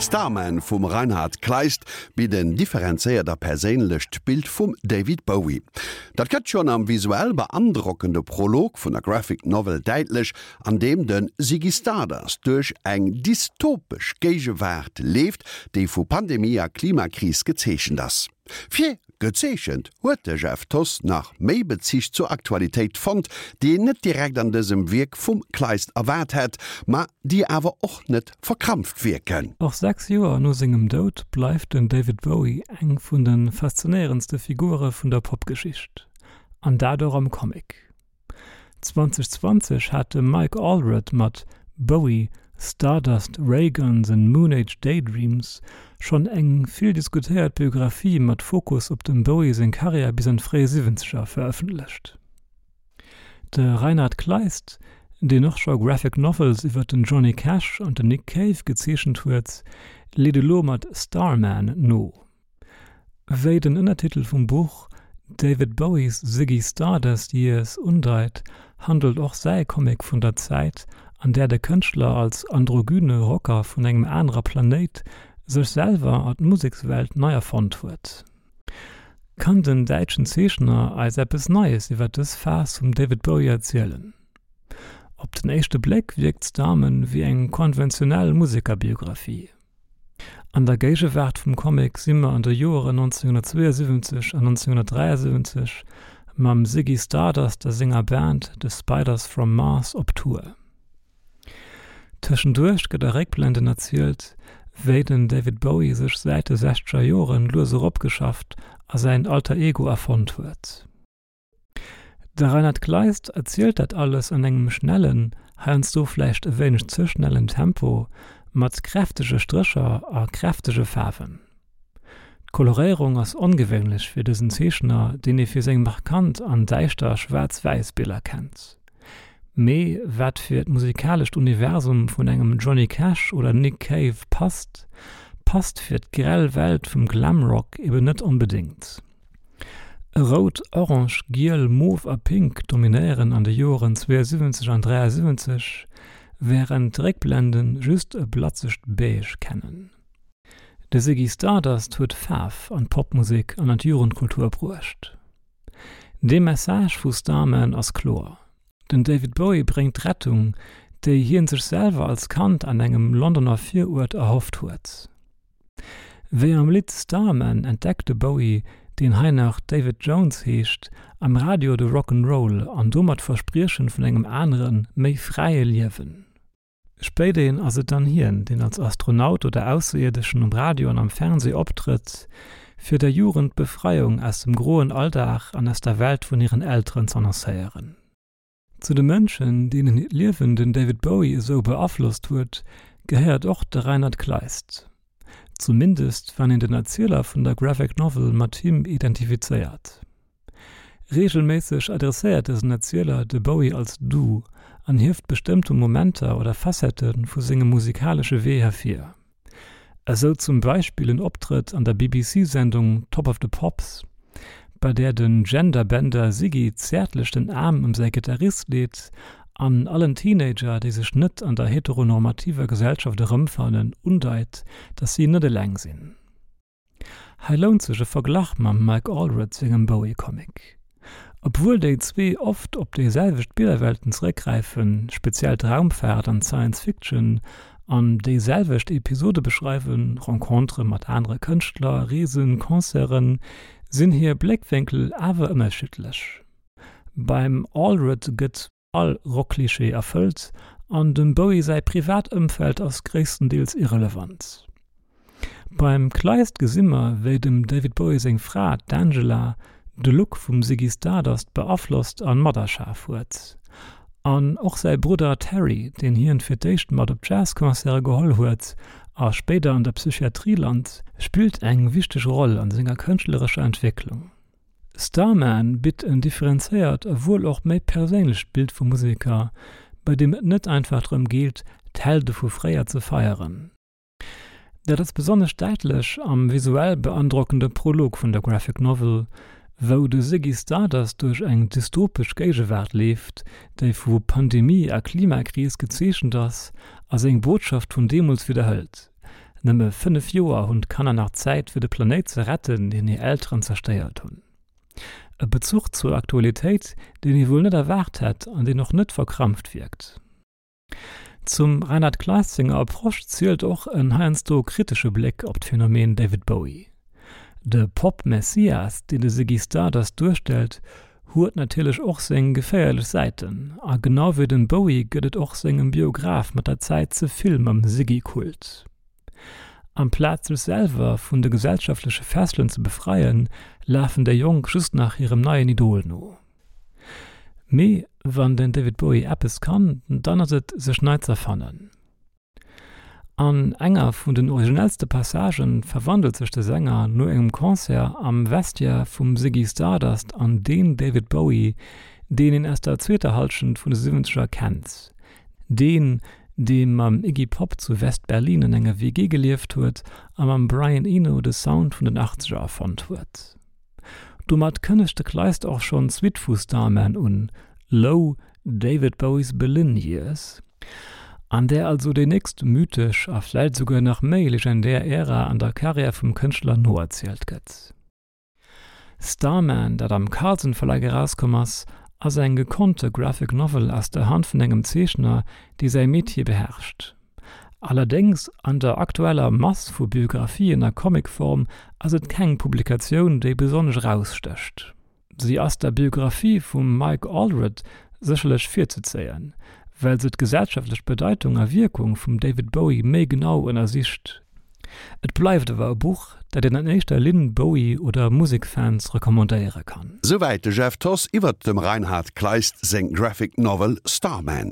Starman vum Reinhard Kleist bitt en differenzéiert a perséinlecht Bild vum David Bowie. Dat gëtt schonn am visuell beandrockende Prolog vun der Graphic Novel däitlech, an deem de Ziggy Stardust duerch eng dystopesch Géigewaart leeft, déi vu Pandemie a Klimakris gezeechent ass. Fir gezeechent huet de Jeff Thoss nach méi Bezich zur Aktualitéit fonnt, déi een net direkt an dësem Wierk vum Kleist erwaart hätt, ma déi awer och net verkrampft wierken. Och 6 Joer no sengem Doud bleift den David Bowie eng vun de faszinéierendste Figure vun der Popgeschicht, an dat och am Comic. 2020 hat de Mike Allred mat Bowie, Stardust, Rayguns and Moonage Daydreams schonn eng vill diskutéiert Biographie mat Fokus op dem Bowie seng Karriär bis an d'fréi Siwwenzeger verëffentlecht. De Reinhard Kleist, deen och scho Graphic Novels iwwer den Johnny Cash an den Nick Cave gezeechent huet, leet elo mat Starman no. Wéi den Ënnertitel vum Buch David Bowies Ziggy Stardust Years undeit, handelt och säi Comic vun der Zäit, an där de Kënschtler als androgyne Rocker vun engem anerer Planéit sech selwer a d'Musekswelt nei erfonnt huet. Kann den däitschen Zeechner eis eppes Neies iwwer dës Phas vum David Bowie erzielen? Op den éischte Bléck wierkt Starman wéi eng konventionell Musekerbiographie. An der Géigewaart vum Comic si mer an de Joeren 1972 an 1973 mam Ziggy Stardust a senger Band The Spiders from Mars op Tour. Tëschenduerch gëtt a Réckblenden erzielt, wéi den David Bowie sech säit de sechzeger Joren lues eropgeschafft a säin Alter Ego erfonnt huet. De Reinhard Kleist erzielt dat alles an engem schnellen, heiansdo vläicht e wéineg ze schnellen Tempo, mat kräftege Strécher a kräftege Faarwen. D'Koloréierung ass ongewéinlech fir dësen Zeechner, deen ee fir seng markant an däischter Schwaarz-Wäiss-Biller kennt. Mee wat fir d'musikalescht Universum vun engem Johnny Cash oder Nick Cave passt, passt fir d'grell Welt vum Glamrock eben net onbedéngt. Rout, Orange, Giel, Mof a Pink dominéieren an de Joren 72 an 73, wärend d'Réckblenden just e blatzegt Beige kennen. De Ziggy Stardust huet Faarf an d'Popmusek an an d'Jugendkultur bruecht. De Message vu Starman ass kloer, Den David Bowie bréngt d'Rettung, déi hien sech selwer als Kand an engem Londoner Viruert erhofft huet. Wéi am Lidd Starman entdeckt de Bowie, deen hei nach David Jones heescht, am Radio de Rock 'n' Roll an domat d'Verspriechen vun engem aneren, méi fräie Liewen. Spéiderhin ass et dann hien, deen als Astronaut oder Ausserierdeschen um Radio an am Fernsee optrëtt, fir der Jugend d'Befreiung aus dem groen Alldag an aus der Welt vun hiren Elteren z'annoncéieren. Zu de Mënschen, deenen hiert Liewen den David Bowie esou beaflosst huet, gehéiert och de Reinhard Kleist. Zumindest wann een den Erzieler vun der Graphic Novel mat him identifizéiert. Reegelméisseg adresséiert dësen Erzieler de Bowie als Du an hieft bestëmmte Momenter oder Facettë vu sengem musikalesche Wee hervir. Esou zum Beispill en Optrëtt an der BBC-Sendung Top of the Pops, bei där den Gender-Bender Ziggy zäertlech den Aarm ëm säi Gittarist leet an allen Teenager, déi sech net an der heteronormativer Gesellschaft erëmfannen, undeit, dass si net eleng sinn. Hei lount sech e Verglach mam Mike Allred sengem Bowie-Comic. Obwuel déi zwee oft op déi selwecht Billerwelten zeréckgräifen, speziell d'Raumfaart an d'Science Fiction, an déi selwecht Episode beschreiwen, Rencontere mat anere Kënschtler, Reesen, Concerten, sinn hir Bléckwénkel awer ënnerschiddlech. Beim Allred gëtt. All Rock-Klischee erfëllt an dem Bowie säi privat Ëmfeld ass gréisstendeels irrelevant. Beim Kleist gesi mer, wéi dem David Bowie seng Fra, d'Angela, de Look vum Ziggy Stardust beaflosst an materschaf huet. An och säi Brudder Terry, deen hien fir d'éischt mat op Jazz-Concerte geholl huet a spéider an der Psychiatrie lant, spillt eng wichteg Roll an senger kënschtlerescher Entwécklung. Starman bitt en differenzéiert a wuel och méi perséinlecht Bild vum Museker, bei deem et net einfach drëm geet, d'Helde vu fréier ze feieren. Dat ass besonnesch däitlech am visuell beandrockende Prolog vun der Graphic Novel, wou de Ziggy Stardust duerch eng dystopesch Géigewaart leeft, déi vu Pandemie a Klimakris gezeechent ass a seng Botschaft vun deemools widderhëlt. Nëmme 5 Joer hunn d'Kanner nach Zäit fir de Planéit ze retten, deen hir Elteren zerstéiert hunn. E Bezuch zur Aktualitéit, deen ee wuel net erwaart hätt an deen och net verkrampft wierkt. Zum Reinhard Kleist senger Approche zielt och en heiansdo kritesche Bléck op d'Phänomen David Bowie. De Pop-Messias, deen de Ziggy Stardust duerstellt, huet natierlech och seng geféierlech Säiten, a genau wéi dem Bowie gëtt et och sengem Biograph mat der Zäit ze vill mam Ziggy-Kult. Amplaz sech selwer vun de gesellschaftleche Fesselen ze befreien, lafen déi Jonk just nach hirem neien Idol no. Mee wann den David Bowie eppes kann, dann ass et sech nei z'erfannen. An enger vun den originellste Passagen verwandelt sech de Sänger no engem Concert am Vestiaire vum Ziggy Stardust an deen David Bowie, deen een aus der zweeter Hallschent vun de Siwwenzeger kennt. Deen, dee mam Iggy Pop zu West-Berlin an enger WG gelieft huet a mam Brian Eno de Sound vun den Achtzeger erfonnt huet. Domat kënnegt de Kleist och schonn d'Suite vu Starman un, Low, David Bowies Berlin Years, an där also déi nächst mythesch a vläicht esouguer nach méi legendär Ära an der Karriär vum Kënschtler noerzielt gëtt. Starman, dat am Carlsen Verlag erauskomm ass, ass eng gekonnte Graphic Novel aus der Hand vun engem Zeechner, dee säi Metier beherrscht. Allerdéngs, an der aktueller Mass vu Biographien a Comicform ass et keng Publikatioun, déi besonnesch erausstécht. Si ass der Biographie vum Mike Allred sécherlech virzezéien, well se d'gesellschaftlech Bedeitung a Wierkung vum David Bowie méi genau ënnersicht. Et bleift awer e Buch, dat een an éischter Linn Bowie oder Musekfans recommandéiere kann. Souwäit de Jeff Thoss iwwert dem Reinhard Kleist seng Graphic Novel Starman.